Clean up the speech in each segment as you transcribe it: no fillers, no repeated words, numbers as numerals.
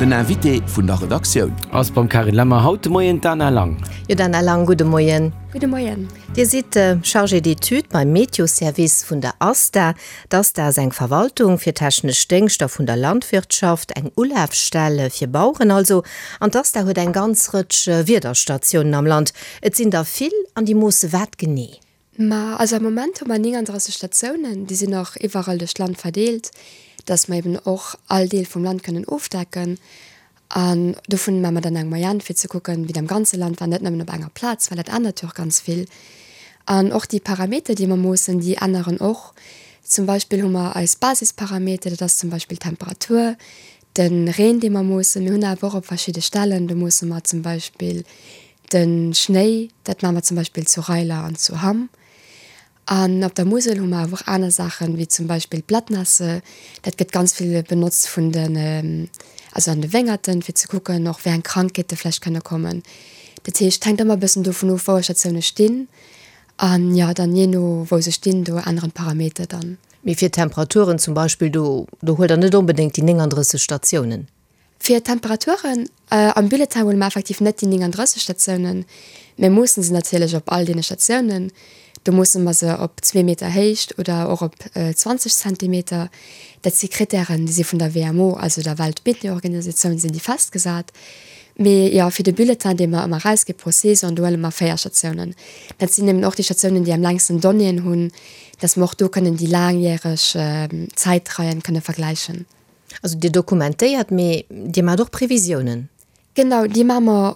Den Invité vun der Redaktioun. Ass beim Carine Lemmer haut de Moien d'Dana Lang. Jo Dana Lang, gudde Moien. Gudde Moien. Dir sidd Chargée d'études beim Meteoservice vun der ASTA. D'ASTA ass eng Verwaltung fir technesch Déngschter vun der Landwirtschaft, eng Ulafstell fir Baueren also. An d'ASTA huet eng ganz Rëtsch Wiederstatiounen am Land. Et sinn der vill an déi moosse wat genee? Ma also am Moment hu mer 39 Statiounen, déi sinn och iwwerall duerch d'Land verdeelt, dass mer eben och all Deel vum Land kënnen ofdecken. An dovun maache mer dann eng Moyenne, fir ze kucken, wéi et am ganze Land war, net nëmmen op enger Plaz, well dat ännert jo och ganz vill. An och déi Parameter, déi mer moossen, déi änneren och. Zum Beispill hu mer eis Basisparameter, dat ass zum Beispill d'Temperatur, de Reen, dee mer moossen. Mir hunn awer och op verschidde Stellen, do moosse mer zum Beispill de Schnéi, dat maache mer zum Beispill zu Reiler an zu Hamm. An op der Musel hu mer awer och aner Saachen, wéi zum Beispill d'Blattnässe. Dat gëtt ganz vill benotzt vun den, also an de Wéngerten, fir ze kucken och, wéi eng Krankheete vläicht kënne kommen. Dat heescht, et hänkt ëmmer e bëssen dovun of, wou eis Statioune stinn. An jo, dann jee no wou se stinn, do änneren d'Parameter dann. Mee fir d'Temperaturen zum Beispill, do do huelt Der net onbedéngt déi 39 Statiounen? Fir d'Temperaturen, am Bulletin huele mer effektiv net déi 39 Statiounen, mir moossen se natierlech op all deene Statiounen. Do moosse mer se op zwee Meter Héicht oder och op 20 Zentimeter. Dat si Krittären, déi si vun der WMO, also der Weltmeteorganisatioun, sinn déi festgesat. Mee jo, fir de Bulletin, dee mer ëmmer erausgi pro Saison, do huele mer 4 Statiounen. Dat sinn eben och déi Statiounen, déi am längsten Donnéeën hunn, dass mer och do kënnen déi laangjäreg Zäitreien kënne vergläichen. Also Dir dokumentéiert, mee Dir maacht och Previsiounen? Genau, déi maache mer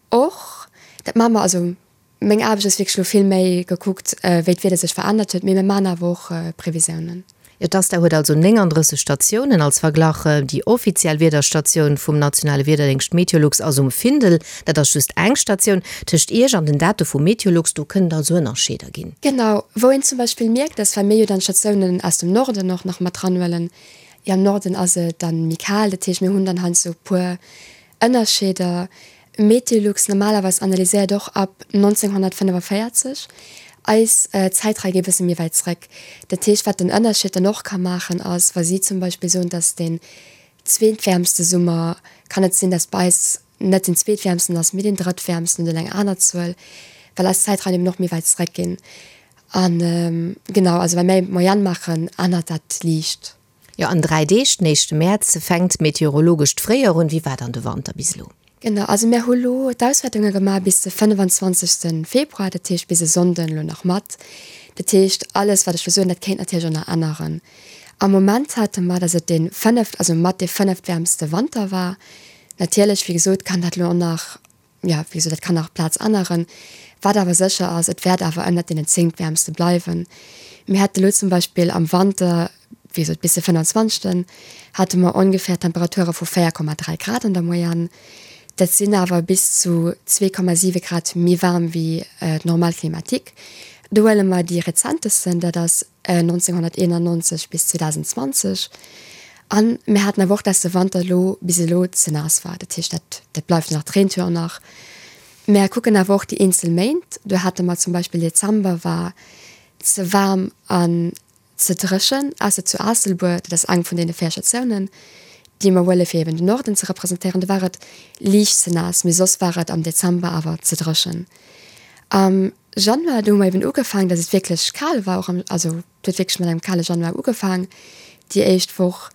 och. Dat maache mer, also meng Aarbecht ass wierklech elo vill méi gekuckt, wéi d'Wieder sech verännert huet, mee mir maachen awer och Previsiounen. Jo, d'ASTA huet also 39 Statiounen. Als Verglach, déi offiziell Wiederstatioun vum nationale Wiederdéngscht Meteolux ass um Findel. Dat ass just eng Statioun. Tëscht Iech an den Date vu Meteolux, do kënnen et also Ënnerscheeder ginn. Genau, wou een zum Beispill mierkt, dass, well mir jo dann d'Statiounen aus dem Norden och nach mat dranhuelen, Jo, am Norden ass et dann méi kal, dat heescht mir hunn dann heiansdo e puer Ënnerscheeder. Meteolux normalerweis analyséiert och ab 1945, eis Zäitrei geet e bësse méi wäit zréck. Dat heescht, wat den Ënnerscheed dann och ka maachen ass, wa si zum Beispill soen, dass deen zweetwäermste Summer, kann et sinn, dass bei eis net den zweetwäermsten ass, mee deen drëttwäermsten oder eng aner Zuel, well eis Zäitreien eben och méi wäit zréck ginn. An genau, also wa mir eng Moyenne maachen, ännert dat liicht. Jo, an 3 Deeg, den éischte Mäerz, fänkt d'meteorologescht Fréijoer un. Wéi war dann de Wanter bis elo? Genau, also mir hu lo d'Auswäertunge gemaach bis de 25. Februar, dat heescht bis e Sonnden elo nach mat. Dat heescht, alles wat ech elo soen, dat kéint natierlech och nach änneren. Am Moment hate mer, datt et dee fënneft, also mat dee fënneftwäermste Wanter war. Natierlech, wéi gesot, kann dat elo och nach Jo, wéi gesot, dat kann nach d'Plaz änneren. Wat awer sécher ass, et wäert awer ënnert deenen zéngtwäermste bleiwen. Mir hate lo zum Beispill am Wanter, wéi gesot bis de 25. Hate mer ongeféier Temperature vu 4,3 Grad an der Moyenne. Dat sinn awer bis zu 2,7 Grad méi waarm wéi d'Normale climatique. Do huele mer déi rezentesten, dat ass 1991 bis 2020. An mir haten awer och, dass de Wanter elo bis elo ze naass war. Dat heescht, dat, dat bleift nach, d'Reent jo och nach. Mär kucken awer och déi eenzel Méint. Do hate mer zum Beispill Dezember war ze waarm an ze dréchen, ausser zu Aasselbuer, dat ass eng vun deene 4 Statiounen, déi mer huele fir eben den Norden ze representéieren, do war et liicht ze naass, mee soss war et am Dezember awer ze dréchen. Am Januar, do hu mer eben ugefaangen, dass et wierklech kal war, och am, also Et huet wierklech mat engem kale Januar ugefaang, déi éischt Woch.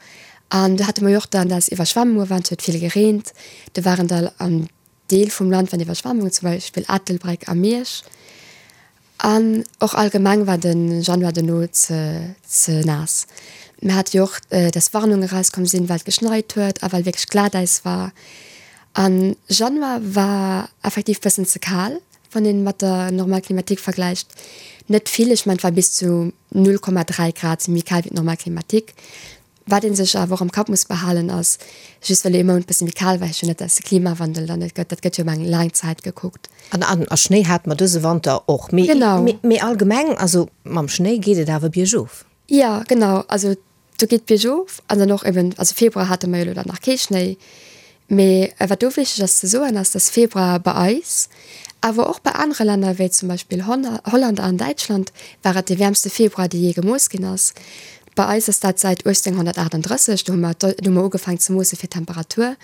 An do hate mer jo och dann, dass Iwwerschwemmunge waren, et huet vill gereent. Do waren da am Deel vum Land waren Iwwerschwemmungen, zum Beispill Ettelbréck a Miersch. An och allgemeng war de Januar dono ze ze naass. Mir hate jo och, dass Warnunge erauskomm sinn, well et geschneit huet a well wierklech Glatäis war. An Januar war effektiv bëssen ze kal. Wann een mat der Normale climatique vergläicht, net vill, ech mengen et war bis zu 0,3 Grad méi kal wéi d'Normale climatique. Wat ee sech awer och am Kapp muss behalen ass, just well ee Mount bësse méi kal war, heescht jo net, dass de Klimawandel dann net gëtt. Dat gëtt jo ëm eng laang Zäit gekuckt. An a Schnéi hate mer dëse Wanter och. Mee mee allgemeng, also mam Schnéi geet et awer biergof. Jo, genau. Also Do geet biergof an dann och eben, also Februar hate mer jo elo dann nach kee Schnéi, mee wat do wichteg ass ze soen ass, dass Februar bei eis, awer och bei anere Länner wéi zum Beispill Holland an Däitschland war et dee wäermste Februar dee jee gemooss ginn ass. Bei eis ass dat säit 1838, do hu mer, do hu mer ugefaangen ze moosse fir d'Temperatur.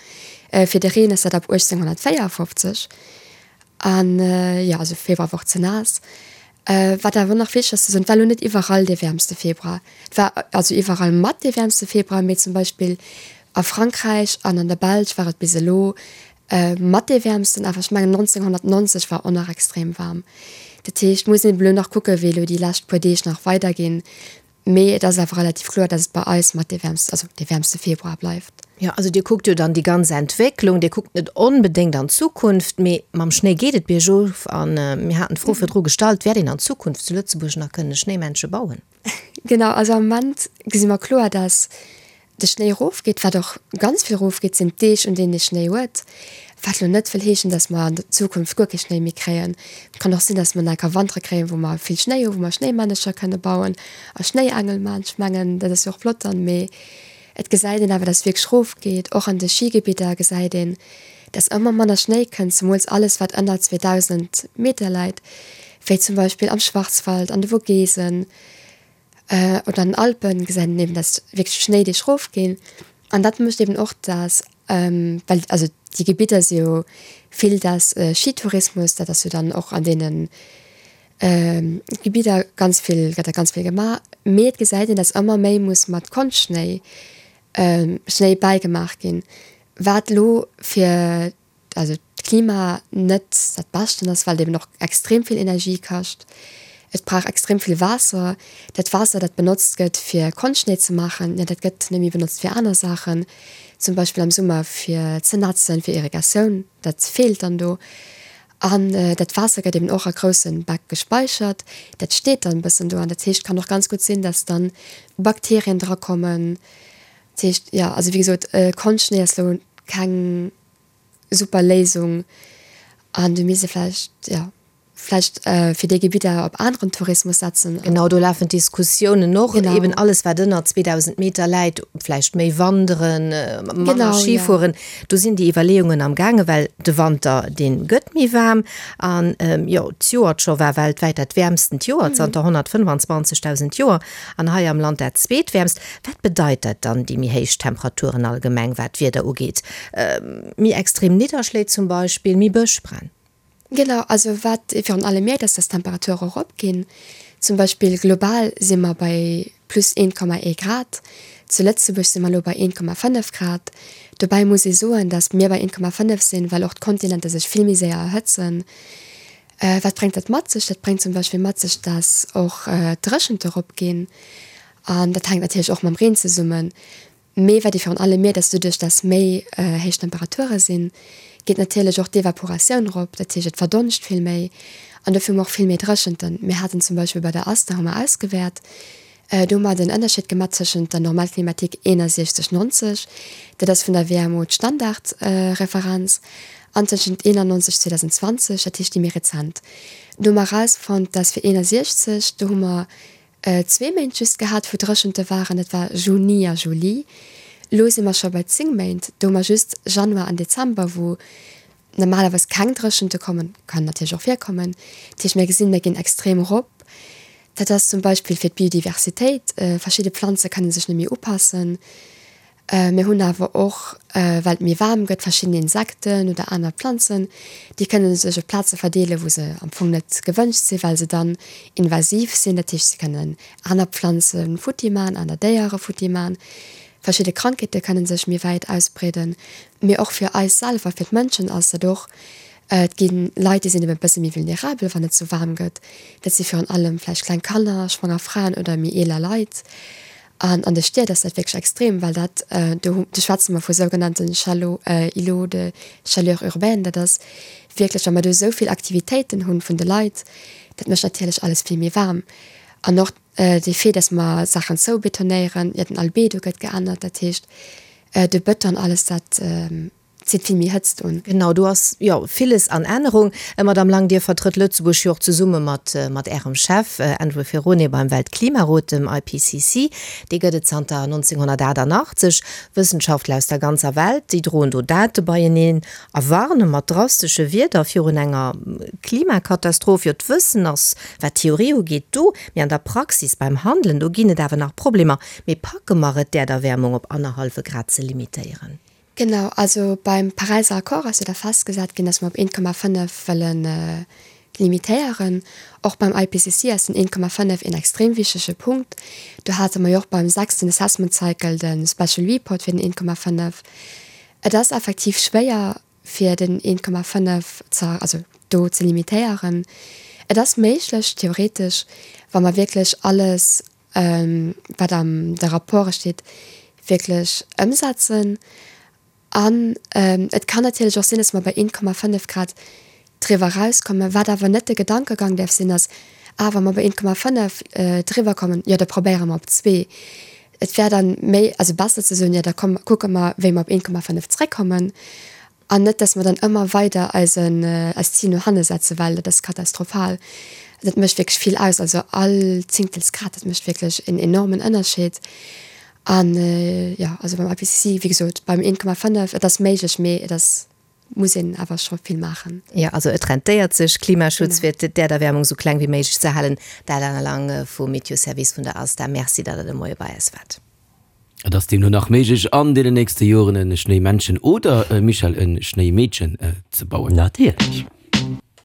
Fir de Reen ass dat ab 1854. An jo, also Februar war och ze naass. Wat awer nach wichteg ass ze soen, et war elo net iwwerall dee wäermste Februar. Et war also iwwerall mat dee wäermste Februar, mee zum Beispill a Frankräich an an der Belsch war et bis elo mat dee wäermsten. Awer ech mengen 1990 war och nach extrem waarm. Dat heescht, muss een eben elo nach kucken, wéi elo déi lescht puer Deeg nach weiderginn. Mee et ass awer relativ kloer, dass et bei eis mat dee wäermste, also dee wäermste Februar bleift. Jo, also Dir kuckt jo dann déi ganz Entwécklung, Dir kuckt net onbedéngt an d'Zukunft, mee mam Schnéi geet et biergof. A mir haten d'Fro virdru gestallt, Wäert een an Zukunft zu Lëtzebuerg nach kënne Schnéimännche bauen? Genau, also am Moment gesi mer kloer, dass de Schnéi erofgeet. Wat och ganz vill erofgeet, sinn d'Deeg, un deenen ee Schnéi huet. Wat elo net wëll heeschen, dass mer an der Zukunft guer kee Schnéi méi kréien. Et kann och sinn, dass mer nach enker Wantere kréien, wou mer vill Schnéi hunn, wou mer Schnéimännercher kënne bauen a Schnéiengel maachen. Ech mengen, dat ass jo och flott dann. Mee et gesäit een awer, dass et wierklech erofgeet. Och an de Schigebidder gesäit een, dass ëmmer manner Schnéi kënnt, zemools alles, wat ënner 2.000 Meter läit, wéi zum Beispill am Schwarzwald, an de Vogesen. Oder an den Alpen gesäit een eben, dass wierklech d'Schnéideeg rofginn. An dat mécht eben och, dass, well also déi Gebidder si jo vill dass Skitourismus, dat ass jo dann och an deene Gebidder ganz vill, gëtt da ganz vill gemaach. Mee et gesäit een, dass ëmmer méi muss mat Konschtschnéi, Schnéi bäigemaach ginn, wat elo fir also d'Klima net dat Beschten ass, well et eben och extrem vill Energie kascht. Et brauch extrem vill Waasser. Dat Waasser, dat benotzt gëtt fir Konschtschnéi ze maachen, jo dat gëtt net méi benotzt fir aner Saachen, zum Beispill am Summer fir ze nätzen, fir Irrigatioun, dat feelt dann do. An dat Waasser gëtt eben och a grousse Bäck gespeichert, dat steet dann e bëssen do an dat heescht, kann och ganz gutt sinn, dass dann Bakterien drakommen. Dat heescht, jo, also wéi gesot, Konschtschnéi ass elo keng super Léisung an do misst ee vläicht, jo, vläicht fir déi Gebidder op aneren Tourismus setzen. Genau, do lafen d'Diskussiounen och, eben alles wat ënner 2.000 Meter läit, vläicht méi wanderen, manner Ski fueren, do sinn déi Iwwerleeungen am gaangen, well de Wanter, dee gëtt méi waarm an, jo, d'Joert scho war weltwäit dat wäermstent Joer zanter 125.000 Joer an hei am Land dat zweetwäermst. Wat bedeit dat dann, déi méi héich Temperaturen allgemeng, wat d'Wieder ugeet? Méi extrem Nidderschléi zum Beispill, méi Bëschbränn? Genau, also wat ee virun allem mierkt, ass, dass d'Temperature eropginn. Zum Beispill global si mer bei plus 1,1 Grad, zu Lëtzebuerg si mer elo bei 1,5 Grad. Dobäi muss ee soen, dass mir bei 1,5 sinn, well och d'Kontinenter sech vill méi séier erhëtzen. Wat bréngt dat mat sech? Dat bréngt zum Beispill mat sech, dass och d'Dréchente eropginn an dat hänkt natierlech och mam Reen zesummen. Mee wat ee virun allem mierkt, ass, doduerch dass méi héich Temperature sinn, geet natierlech och d'Evaporatioun erop, dat heescht et verdonscht vill méi an dofir hu mer och vill méi Dréchenten. Mir haten zum Beispill bei der ASTA hu mer ausgewäert, do hu mer den Ënnerscheed gemaach tëschent der Normale climatique 61, 90, dat ass vun der WMO d'Standardreferenz, an tëschent 91, 2020, dat heescht déi méi rezent. Do hu mer erausfonnt, dass fir 61, do hu mer Zwee Méint just gehat, wou Dréchente waren, dat war Juni a Juli. Elo si mer scho bei 10 Méint, do hu mer just Januar an Dezember, wou normalerweis keng Dréchente kommen, kann natierlech och virkommen. Dat heescht, mir gesinn, mir ginn extrem erop. Dat ass zum Beispill fir d'Biodiversitéit, verschidde Planze kënne sech net méi upassen. Mir hunn awer och, well et méi waarm gëtt, verschidden Insekten oder aner Planzen, déi kënne sech op Plaze verdeelen, wou se am Fong net gewënscht sinn, well se dann invasiv sinn. Dat heescht, se kënnen aner Planze futti man, aner Déiere futti man. Verschidde Krankheete kënne sech méi wäit ausbreeden. Mee och fir eis selwer, fir d'Mënschen ass dat och, et gi Leit, déi sinn eben e bësse méi vulnerabel, wann et sou waarm gëtt. Dat si virun allem vläicht kleng Kanner, schwanger Fraen oder méi eeler Leit. An an de Stied ass dat wierklech extrem, well dat, do do schwätze mer vu sougenannten Chalo Îlots de chaleur urbaine, dat ass wierklech, wa mer do esou vill Aktivitéiten hunn vun de Leit, dat mécht natierlech alles vill méi waarm. An och de Fait, dass mer Saachen zoubetonéieren, jo den Albedo gëtt geännert, dat heescht de Bëton, alles dat. zitt vill méi Hëtzt un. Genau, do ass jo villes an Ännerung. Madamm Lang, Dir vertrëtt Lëtzebuerg jo och zesumme mat mat Ärem Chef Andrew Ferrone beim Weltklimarot, dem IPCC. Dee gëtt et zanter 1988. Wëssenschaftler aus der ganzer Welt, déi droen do Date beieneen a warne mat drastesche Wierder virun enger Klimakatastroph. Jo, d'Wëssen ass, wat d'Theorie ugeet, do, mee an der Praxis, beim Handelen, do ginn et awer nach Problemer. Mee packe mer et, d'Äerderwäermung op annerhallwe Grad ze limitéieren? Genau, also beim Paräiser Accord ass jo da festgesat ginn, datt mer op 1,5 wëlle limitéieren. Och beim IPCC ass den 1,5 een extrem wichtege Punkt. Do hate mer jo och beim sechsten Assessment Cycle de Special Report fir den 1,5. Et ass effektiv schwéier, fir den 1,5 ze, also do ze limitéieren. Et ass méiglech, theoretesch, wa mer wierklech alles wat an de Rapporte steet, wierklech ëmsetzen. An et kann natierlech och sinn, dass mer bei 1,5 Grad driwwer erauskommen. Wat awer net de Gedankegang däerf sinn, ass, Ah, wa mer bei 1,5 driwwer kommen, jo da probéiere mer op zwee. Et wär dann méi, also besser ze soen, jo da komm, kucke mer, wéi mer op 1,5 zréckkommen. An net, dass mer dann ëmmer weider eisen, eist Zil no hanne setzen, well dat ass katastrophal. Dat mécht wierklech vill aus. Also all Zéngtelsgrad, dat mécht wierklech en enormen Ënnerscheed. An, jo, also beim IPCC, wéi gesot, beim 1,5, et ass méiglech, mee et ass, muss een awer scho vill maachen. Jo, also et rentéiert sech, Klimaschutz, fir d'Äerderwäermung esou kleng wéi méiglech ze halen. Dat Anna Lang vum Meteoservice vun der ASTA. Merci, datt Der de Moie bei eis waart. Et ass deemno nach méiglech an deenen nächste Joren e Schnéimännchen oder, Michèle, e Schnéimeedchen ze bauen. Natierlech.